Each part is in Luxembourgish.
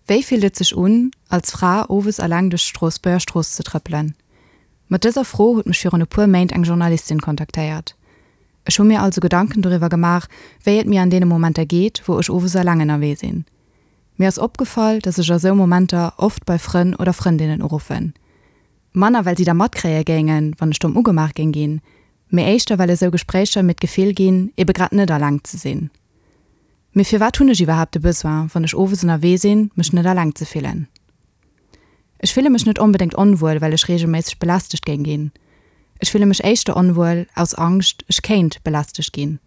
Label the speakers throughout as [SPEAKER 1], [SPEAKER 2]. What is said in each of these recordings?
[SPEAKER 1] Wéi fillt et sech un, als Fra owes eleng duerch d'Stroossbuerger Strooss ze trëppelen? Mat dëser Fro huet mech virun e puer Méint eng Journalistin kontaktéiert. Ech hu mir also Gedanken doriwwer gemaach, wéi et mir an deene Momenter geet, wou ech owes eleng ënnerwee sinn. Mir ass opgefall, dass ech a sou Momenter oft bei Frënn oder Frëndinnen uruffen. Manner well si da matkréie géingen, wann ech domm ugemaach géing ginn, mee éischter well esou Gespréicher mir d'Gefill ginn, ebe grad net eleng ze sinn. Mee firwat hunn ech iwwerhaapt de Besoin, wann ech owes ënnerwee sinn, mech net eleng ze fillen? Ech fille mech net onbedéngt onwuel, well ech reegelméisseg belästegt géing ginn. Ech fille mech éischter onwuel aus Angscht, ech kéint belästegt ginn.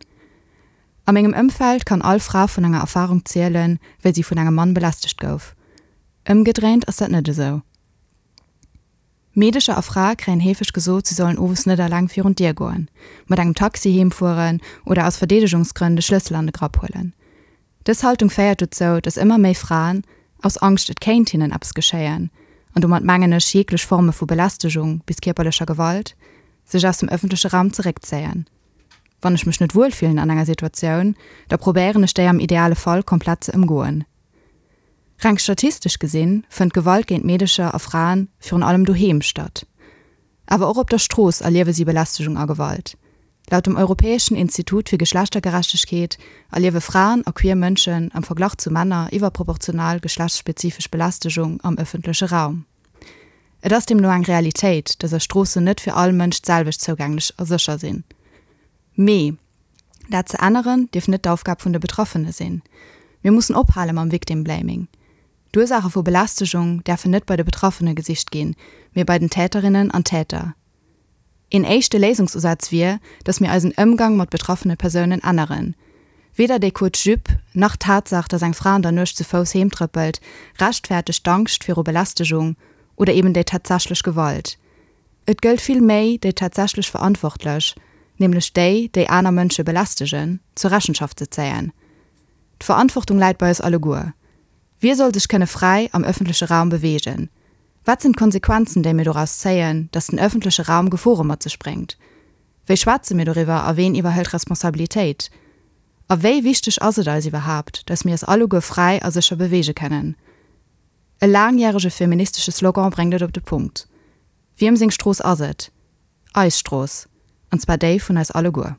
[SPEAKER 1] A mengem Ëmfeld kann all Fra vun enger Erfarung zielen, wéi si vun engem Mann belästegt gouf. Ëmgedréint ass dat net esou. Meedecher a Frae kréien heefeg gesot, si sollen owes net eleng virun d'Dier goen, mat engem Taxi heem fueren oder aus Verdeedegungsgrënn de Schlëssel an de Grapp huelen. Dës Haltung féiert dozou, datt ëmmer méi Fraen, aus Angscht et kéint hinnen eppes geschéien, an domat mengen ech jeeglech Forme vu Belästegung bis kierperlecher Gewalt, sech aus dem ëffentleche Raum zeréckzéien. Wann ech mech net wuel fillen an enger Situatioun, da probéieren ech déi am ideale Fall komplett ze ëmgoen. Reng statistesch gesinn, fënnt Gewalt géint Meedecher a Fraen virun allem doheem statt. Awer och op der Strooss erliewe si Belästegung a Gewalt. Laut dem Europäeschen Institut fir Geschlechtergerechtegkeet erliewe Fraen a queer Mënschen am Verglach zu Männer iwwerproportional geschlechtsspezifesch Belästegung am ëffentleche Raum. Et ass deemno eng Realitéit, dass eis Stroossen net fir all Mënsch d'selwecht zougänglech a sécher sinn. Mee dat ze änneren, dierf net d'Aufgab vun de Betraffene sinn. Mir mussen ophale mam Victim Blaming. D'Ursaache vu Belästegung däerfen net bei de Betraffene gesicht ginn, mee bei den Täterinnen an Täter. Een éischte Léisungsusaz wier, datt mir eisen Ëmgang mat betraffene Persounen änneren. Weder déi kuerz Jupe, nach d'Tatsaach, datt eng Fra an der Nuecht zu Fouss heem trëppelt, rechtfäertegt d'Angscht viru Belästegung oder eben déi tatsächlech Gewalt. Et gëllt vill méi, déi tatsächlech Verantwortlech, nämlech déi, déi aner Mënsche belästegen, zur Rechenschaft ze zéien. D'Verantwortung läit bei eis alleguer. Wie soll sech kënne fräi am ëffentleche Raum beweegen? Wat sinn d'Konsequenzen, déi mir doraus zéien, datt den ëffentleche Raum Gefore mat sech bréngt? Wéi schwätze mir doriwwer a ween iwwerhëlt Responsabilitéit? A wéi wichteg ass et eis iwwerhaapt, datt mir eis alleguer fräi a sécher beweege kënnen? E laangjärege feministesche Slogan bréngt et op de Punkt, Wiem seng Strooss ass et? Eis Strooss, an zwar déi vun eis alleguer.